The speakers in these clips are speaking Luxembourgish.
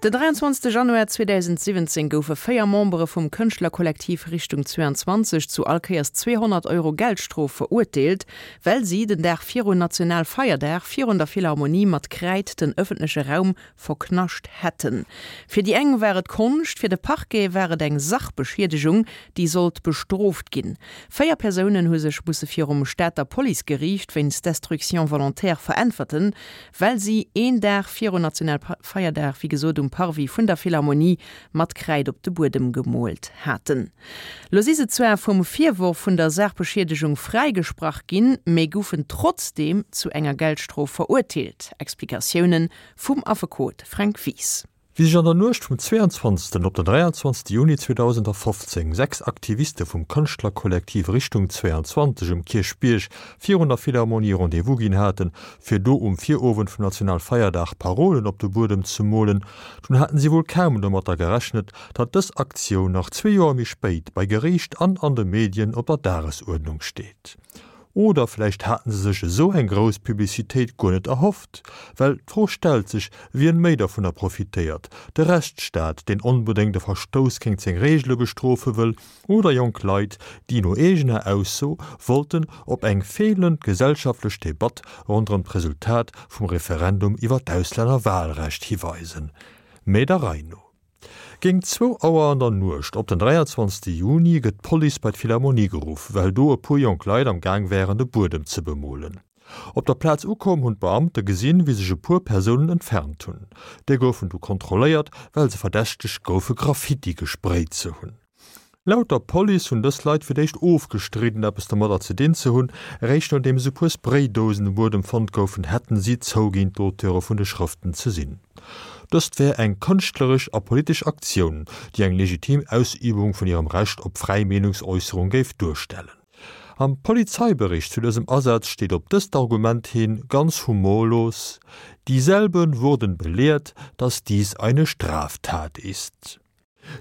Den 23 Januar 2017 goufe 4 Membere vum Kënschtlerkollektiv Richtung 22 zu all Kéiers 200 Euro Geldstrof verurteelt, well si den Dag virun Nationalfeierdag virun der Philharmonie mat Kräid den ëffentleche Raum verknascht hätten. Fir déi eng war et Konscht, fir de Parquet war et eng Sachbeschiedegung, déi sollt bestrooft ginn. 4 Persounen hu sech musse virum Stater Policegeriicht wéinst Destruction volontaire veräntwerten, well si een Dag virun Nationalfeierdag, wéi gesot, um Parvis vun der Philharmonie mat Kräid op de Buedem gemoolt haten. Lo si se zwar vum Virworf vun der Saachbeschiedegung fräigesprach ginn, mee goufen trotzdeem zu enger Geldstrof verurteelt. Explikatioune vum Affekot Fränk Wies. Wéi sech an der Nuecht vum 22. op den 23. Juni 2015 6 Aktiviste vum Kënschtlerkollektiv Richtung 22 um Kierchbierg virun der Philharmonie Rendez-vous ginn haten, fir do um Virowend vum Nationalfeierdag Parolen op de Buedem ze molen, dunn haten si wuel kaum domatter gerechnet, datt dës Aktioun nach zwee Joer méi spéit bei Geriicht an an de Medien op der Dagesuerdnung steet. Oder vläicht haten se sech esou eng grouss Publicitéit guer net erhofft? Well d'Fro stellt sech, wien méi dovunner profitéiert, de Rechtsstaat, deen onbedéngt e Verstouss géint seng Reegele bestrofe wëll, oder jonk Leit, déi no eegener Ausso wollten op eng feelend gesellschaftlech Debatt ronderëm d'Resultat vum Referendum iwwer d'Auslännerwahlrecht hiweisen. Mee der Rei no. Géint zwou Auer an der Nuecht op den 23 Juni gëtt d'Police bei d'Philharmonie geruff, well do e puer jonk Leit am Gaang wären de Buedem ze bemolen. Op der Plaz ukomm hunn d'Beamte gesinn, wéi sech e puer Persounen entfernt hunn. Déi goufen du kontrolléiert, well se verdächtegt goufe Graffiti gesprayt ze hunn. Laut der Police hunn dës Leit fir d'éischt ofgestridden, eppes domadder ze dinn ze hunn. Eréischt nodeems e puer Spraydousen um Buedem fonnt goufen, hätten si zouginn, d'Auteure vun de Schrëften ze sinn. Dëst wär eng kënschtleresch a politesch Aktioun, déi eng legitim Ausübung vun hirem Recht op fräi Meenungsäusserung géif duerstellen. Am Polizeibericht zu dësem Asaz steet op dëst Argument hin ganz humorlos, Dieselben wurden belehrt, dass dies eine Straftat ist.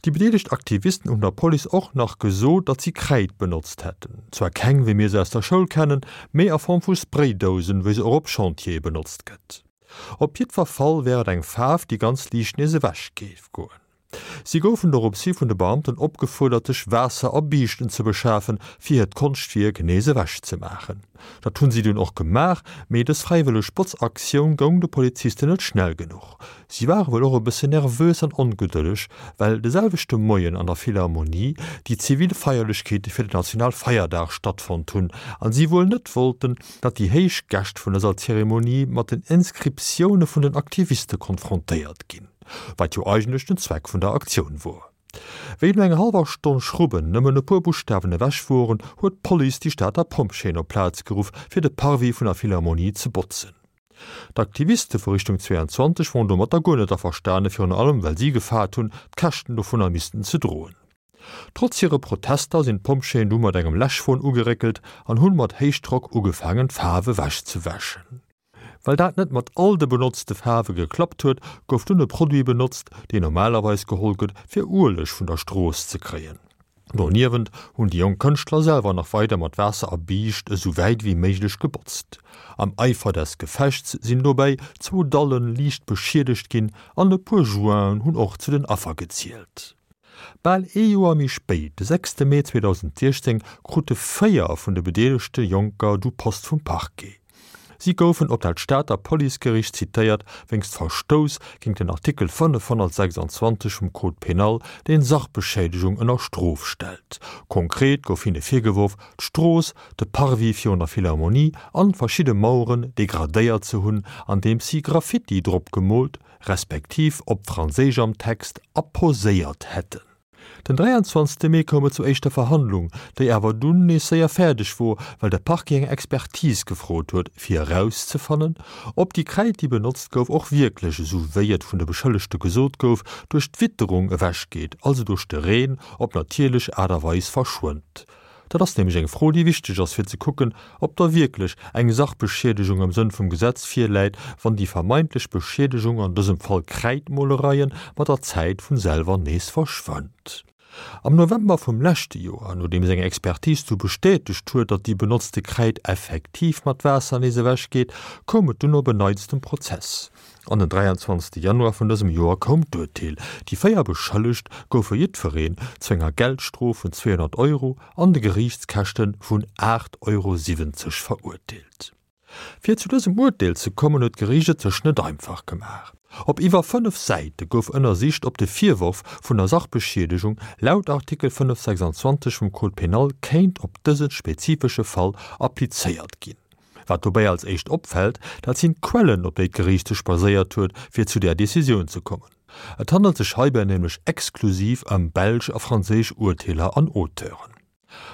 Déi bedeelegt Aktivisten hunn der Police och nach gesot, datt si Kräid benotzt hätten. Zwar keng, wéi mir se aus der Schoul kennen, mee a Form vu Spraydousen, wéi se och op Chantiere benotzt gëtt. Op jiddwer Fall wär et eng Faarf, déi ganz liicht nees ewech géif goen. Si goufen doropshi vun de Beamten opgefuerdert, sech Waasser a Biischten ze beschafen, fir hiert Konschtwierk nees ewech ze maachen. Dat hunn si dunn och gemaach, mee dës fräiwëlleg Botzaktioun goung de Polizisten net schnell genuch. Si ware wuel och e bëssen nervös an ongedëlleg, well de selwechte Moien an der Philharmonie déi zivil Feierlechkeete fir den Nationalfeierdag stattfonnt hunn an si wuel net wollten, datt déi héich Gäscht vun dëser Zeremonie mat den Inscriptioune vun den Aktiviste konfrontéiert ginn, wat jo eigentlech den Zweck vun der Aktioun wor. Wéi no enger hallwer Stonn Schrubben nëmmen e puer Buschtawen ewech woren, huet d'Police déi Stater Pompjeeën op d'Plaz geruff, fir de Parvis vun der Philharmonie ze botzen. D'Aktiviste vu Richtung 22 woren domatter guer net averstane, virun allem well si gefaart hunn, d'Käschten dovunner missten ze droen. Trotz hire Protester sinn d'Pompjeeën du mat engem Läschwon ugeréckelt an hunn mat Héichdrock ugefaangen d'Faarf ewechzewäschen. Well dat net mat all de benotzte Faarwe geklappt huet, gouf dunn e Produit benotzt, deen normalerweis geholl gëtt, fir Ueleg vun der Strooss ze kréien. Doniewent hunn déi jonk Kënschtler selwer nach weider mat Waasser a Biischt esou wäit ewéi méiglech gebotzt. Am Eifer des Gefechts sinn dobäi zwou Dalle liicht beschiedegt ginn an e puer Jointen hunn och zu den Affer gezielt. Bal ee Joer méi spéit, de sechste Mee 2016, krute 4 vun de bedeelegte Jonker du Post vum Parquet. Si goufen op dat Stater Policegeriicht zitéiert wéinst Verstouss géint den Artikel 526 vum Code pénal, deen Sachbeschädegung ënner Strof stellt. Konkret gouf hinne virgeworf, d'Strooss, de Parvis virun der Philharmonie an verschidde Maueren degradéiert ze hunn, andeems si Graffiti drop gemoolt, respektiv op Franséisch am Text apposéiert hätten. Den 23 Mee koum et zur éischter Verhandlung, déi awer dunn nees séier fäerdeg wor, well de Parquet eng Expertise gefrot huet, fir erauszefannen, ob déi Kräid, déi benotzt gouf, och wierklech, esou wéi et vun de Beschëllegte gesot gouf, duerch d'Witterung ewechgeet, also duerch de Reen, op natierlech Aart a Weis verschwënnt. Dat ass nämlech eng Fro, déi wichteg ass, fir ze kucken, ob da wierklech eng Sachbeschiedegung am Sënn vum Gesetz virläit, wann déi vermeintlech Beschiedegung, an dësem Fall Kräidmolereien, mat der Zäit vun selwer nees verschwënnt. Am November vum leschte Joer, nodeems eng Expertise du bestätegt huet, datt déi benotzte Kräid effektiv mat Waasser nees ewech geet, koum et dunn op en Neits zum Prozess. An den 23 Januar vun dësem Joer koum d'Urteel, Déi 4 Beschëllegt goufe jiddwereen zu enger Geldstrof vun 200 Euro an de Geriichtskäschte vun 8,70 Euro verurteelt. Fir zu dësem Urteel ze kommen, huet d'Geriicht et sech net einfach gemaach. Op iwwer 5 Säite gouf ënnersicht, ob de Virworf vun der Sachbeschiedegung laut Artikel 526 vum Code pénal kéint op dëse spezifesche Fall applizéiert ginn. Wat dobäi als éischt opfält, dat sinn d'Quellen, op déi d'Geriicht sech baséiert huet, fir zu där Decisioun ze kommen. Et handelt sech heibäi nämlech exklusiv ëm belsch a franséisch Urteeler an Auteuren.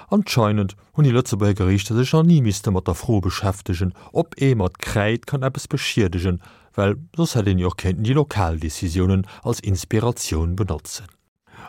Anscheinend hunn déi Lëtzebuerger Geriichter sech nach ni misste mat der Fro beschäftegen, ob ee mat Kräid kann eppes beschiedegen, well soss hätt een jo och kéinten déi lokal Decisiounen als Inspiratioun benotzen.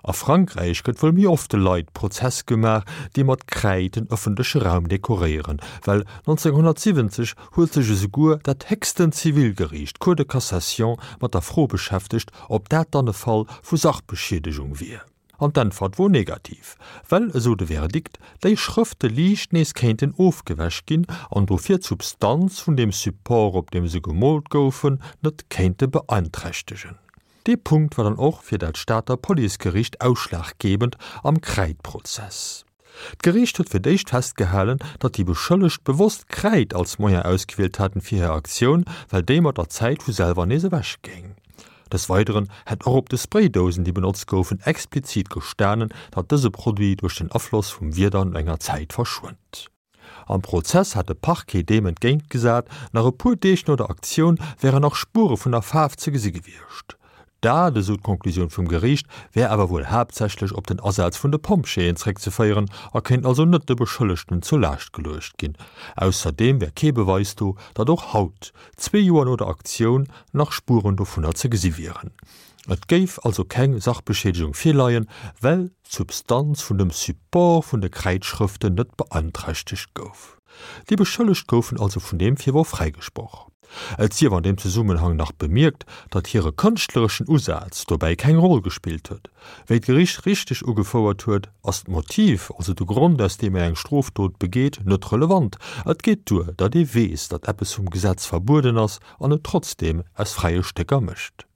A Frankräich gëtt wuel méi oft de Leit Prozess gemaach, déi mat Kräid den ëffentleche Raum dekoréieren, well 1970 huet sech esouguer dat héchsten Zivilgeriicht, d'Cour de Cassation, mat der Fro beschäftegt, ob dat dann e Fall vu Sachbeschiedegung wier. An d'Äntwert wor negativ, well, esou de Verdikt, déi Schrëfte liicht nees kéinten ofgewäsch ginn an dofir d'Substanz vun deem Support, op deem se gemoolt goufen, net kéinte beeinträchtegen. Dee Punkt war dann och fir dat Stater Policegeriicht ausschlaggebend am Kräidprozess. D'Geriicht huet fir d'éischt festgehalen, datt déi Beschëllegt bewosst Kräid als Moyen ausgewielt haten fir hir Aktioun, well déi mat der Zäit vu selwer nees ewech géing. Des Weideren hätt och op de Spraydousen, déi benotzt goufen, explizit gestanen, datt dëse Produit duerch den Afloss vum Wieder no enger Zäit verschwënnt. Am Prozess hat de Parquet deem entgéint gesat, nach e puer Deeg no der Aktioun wären nach Spuere vun der Faarf ze gesi gewiescht. Dat, esou d'Konklusioun vum Geriicht, wär awer wuel haaptsächlech op den Asaz vun de Pompjeeën zréckzeféieren a kéint also net de Beschëllegten zur Laascht geluecht ginn. Ausserdeem wär kee Beweis do, datt och haut, zwee Joer no der Aktioun, nach Spueren dovunner ze gesi wieren. Et géif also keng Sachbeschiedegung virleien, well d'Substanz vun dem Support vun de Kräidschrëften net beanträchtegt gouf. Déi Beschëllegt goufen also vun deem Virworf fräigesproch. Et sief an deem Zesummenhang nach bemierkt, datt hire kënschtlereschen Usaz dobäi keng Roll gespillt huet. Wéi d'Gericht richteg ugefouert huet, ass d'Motiv, also de Grond aus deem een eng Strofdot begeet, net relevant. Et geet duer, datt ee weess, datt eppes vum Gesetz verbueden ass an et trotzdeem aus fräie Stécker mécht.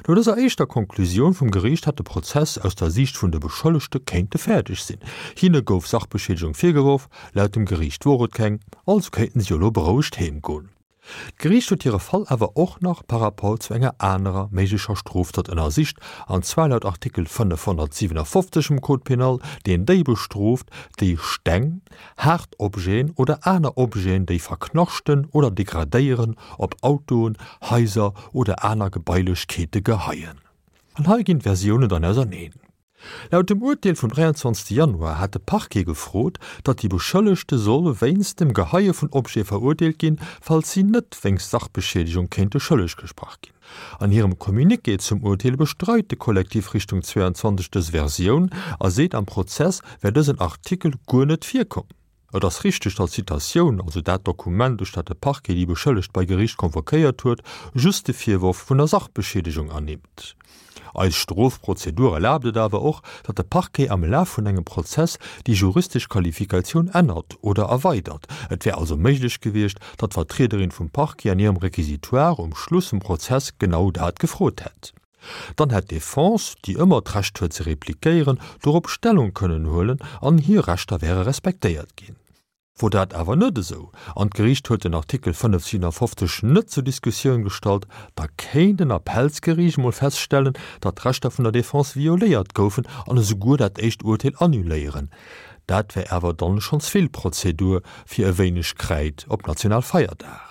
No dëser éischter Konklusioun vum Geriicht hätt de Prozess aus der Siicht vun de Beschëllegte kéinte fäerdeg sinn. Hinne gouf Sachbeschiedegung virgeworf, laut dem Geriicht wor et keng, also kéinten si elo berouegt heem goen. D'Geriicht huet hire Fall awer och nach par rapport zu enger anerer méiglecher Strofdot ënnersicht, an zwar laut Artikel 557 vum Code pénal, deen déi bestrooft, déi Steng, haart Objeten oder aner Objeten, déi verknaschten oder degradéieren, op Autoen, Haiser oder aner Gebailechkeete geheien. An hei ginn d'Versiounen dann auserneen. Laut dem Urteel vum 23 Januar hat de Parquet gefrot, datt déi Beschëllegte solle wéinst dem Geheie vun Objete verurteelt ginn, falls si net wéinst Sachbeschiedegung kéinte schëlleg gesprach ginn. An hirem Communiqué zum Urteel bestreit de Kollektiv Richtung 22 dës Versioun a seet, am Prozess wär dësen Artikel guer net virkomm. Et ass richteg, datt d'Citatioun, also dat Dokument, duerch dat de Parquet déi Beschëllegt bei Geriicht convoquéiert huet, just de Virworf vun der Sachbeschiedegung ernimmt. Eis Strofprozedur erlaabt et awer och, datt de Parquet am Laf vun engem Prozess déi juristesch Qualifikatioun ännert oder erweidert. Et wär also méiglech gewiescht, datt d'Vertriederin vum Parquet an hirem Réquisitoire um Schluss vum Prozess genau dat gefrot hätt. Dann hätt d'Defense, déi ëmmer d'Recht huet ze repliquéieren, dorop Stellung kënnen huelen an hir Rechter wäre respektéiert ginn. Wor dat awer net esou, an d'Geriicht huet den Artikel 557 net zur Diskussioun gestallt, da kéint en Appellsgeriicht emol feststellen, datt d'Rechter vun der Defense violéiert goufen an esouguer dat éischt Urteel annuléieren. Dat wär awer dann schonns vill Prozedur fir e wéineg Kräid op Nationalfeierdag.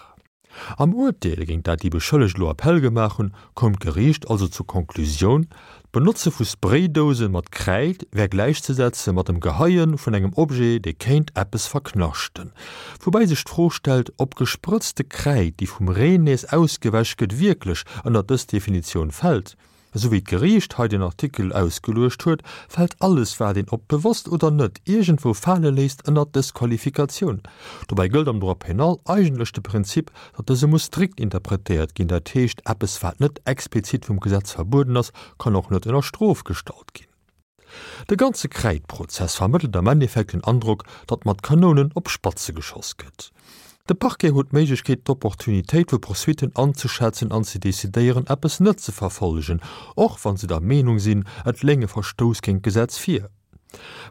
Am Urteel, géint dat déi Beschëllegt elo Appell gemaach hunn, koum d'Geriicht also zur Konklusioun, d'Benotze vu Spraydouse mat Kräid wär gläichzesetze mat dem Geheie vun engem Objet, dee kéint eppes verknaschten. Woubäi sech d'Fro stellt, ob gesprëtzte Kräid, déi vum Reen nees ausgewäsch gëtt, wierklech ënnert dës Definitioun fält. Esou wéi d'Geriicht hei den Artikel ausgeluecht huet, fält alles wat een, ob bewosst oder net, iergendwou fale léisst, ënnert dës Qualifikatioun. Dobäi gëllt am Droit pénal eigentlech de Prinzip, datt dëse muss strikt interpretéiert ginn, dat heescht, eppes wat net explizit vum Gesetz verbueden ass, kann och net ënner Strof gestallt ginn. De ganze Kräidprozess vermëttelt am Endeffekt den Androck, datt mat Kanounen op Spatze geschoss gëtt. De Parquet huet d'Méiglechkeet, d'Opportunitéit vu Poursuitten anzeschätzen an ze decidéieren, eppes net ze verfollegen, och wa se der Meenung sinn, et léing e Verstouss géint d'Gesetz vir.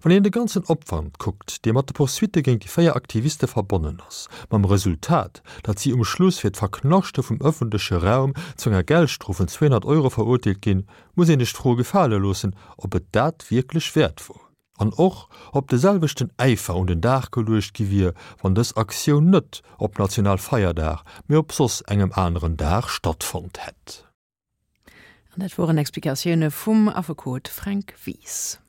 Wann een de ganzen Opwand kuckt, dee mat de Poursuitte géint déi 4 Aktiviste verbonnen ass, mam Resultat, datt si um Schluss fir d'Verknaschte vum ëffentleche Raum zu enger Geldstrof vun 200 Euro verurteelt ginn, muss een sech d'Fro gefale loossen, ob et dat wierklech wäert wor. An och, ob de selwechten Äifer un den Dag geluecht gi wier, wann dës Aktioun net op Nationalfeierdag, mee op soss engem aneren Dag stattfonnt hätt. An dat woren Explikatioune vum Affekot Fränk Wies.